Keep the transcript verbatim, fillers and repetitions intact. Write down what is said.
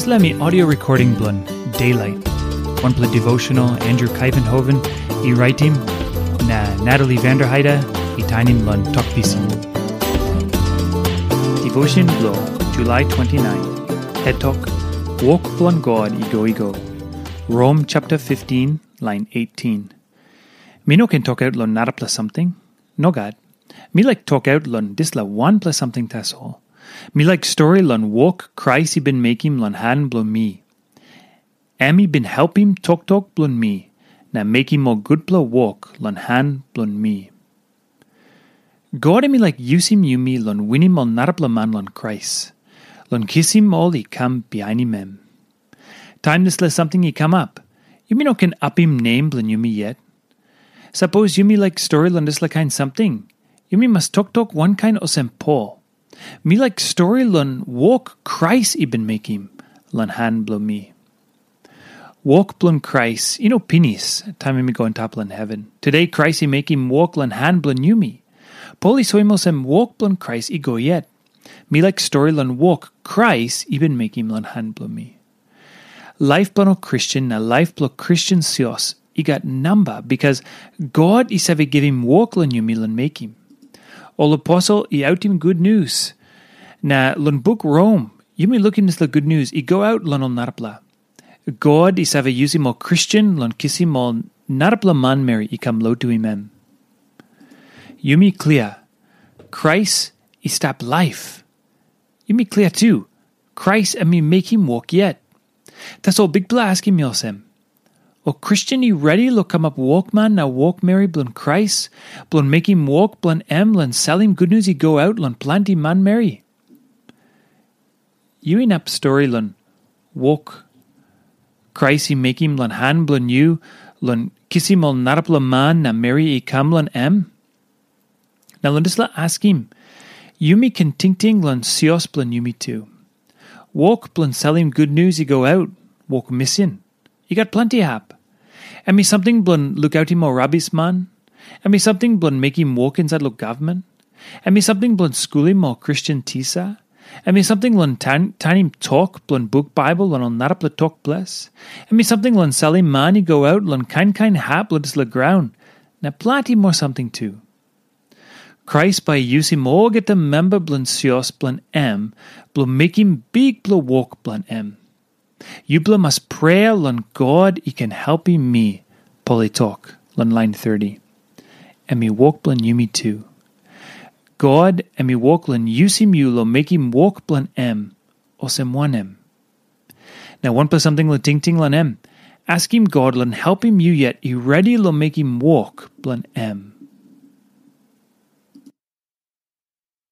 Dispela mi audio recording bilong Daylight. Wanpela devotional Andrew Kaivenhoven i raitim na Natalie Vanderheide i tainim long Tok Pisin. Devotion bilong July twenty-nine. Het tok, Wok bilong God i go i go. Rom chapter fifteen, line eighteen. Mi no ken tokaut long narapela samting. Nogat. Mi laik tokaut long dispela wanpela samting tasol. Mi laik stori long wok Krais i bin mekim long han bilong mi. Em i bin helpim toktok bilong mi na mekim ol gutpela wok long han bilong mi. God em i laik yusim yumi long winim ol narapela man long Krais, long kisim ol i kam bihainim em. Taim dispela samting i kamap, yumi no ken apim nem bilong yumi yet. Sapos yumi laik stori long dispela kain samting, yumi mas toktok wankain olsem Pol. Mi laik stori long wok Krais i bin mekim long han bilong mi. Wok bilong Krais i no pinis taim em i go antap long heven. Tude Krais i mekim wok long han bilong yumi. Pol i soim olsem wok bilong Krais i go yet. Mi laik stori long wok Krais i bin mekim long han bilong mi. Laip bilong ol Kristen na laip bilong Kristen sios i gat namba, bikas God i save givim wok long yumi long mekim. Ol aposel i autim gutnius, na long buk Rom yumi lukim dispela gutnius i go aut long ol narapela. God i save yusim ol Kristen long kisim ol narapela manmeri i kam lotuim em. Yumi klia, Krais i stap laip. Yumi klia tu, Krais em i mekim wok yet. Tasol Bikpela askim mi olsem, ol Kristen i redi long kamap wokman na wokmeri bilong Krais, bilong mekim wok bilong em long salim gutnius i go aut long planti manmeri? Yu inap stori long wok Krais i mekim long han bilong yu long kisim ol narapela man na meri i kam long em? Na long dispela askim, yumi ken tingting long sios bilong yumi tu. Wok bilong salim gutnius i go aut, wok misin, i gat planti hap. Em i samting bilong lukautim ol rabisman. Em i samting bilong mekim wok insait long gavman. Em i samting bilong skulim ol Kristen tisa. Em i samting long tan, tanim tok bilong buk Baibel long ol narapela tok ples. Em i samting long salim man i go aut long kain kain hap long dispela graun, na planti moa samting tu. Krais bai i yusim olgeta memba bilong sios bilong em bilong mekim bikpela wok bilong em. Yupela mas prea long God i ken helpim mi, Pol i tok long lain thirty. Em i wok bilong yumi tu. God em i wok long yusim yu long mekim wok bilong em, olsem wanem? Na wanpela samting long tingting long em, askim God long helpim yu yet i redi long mekim wok bilong em.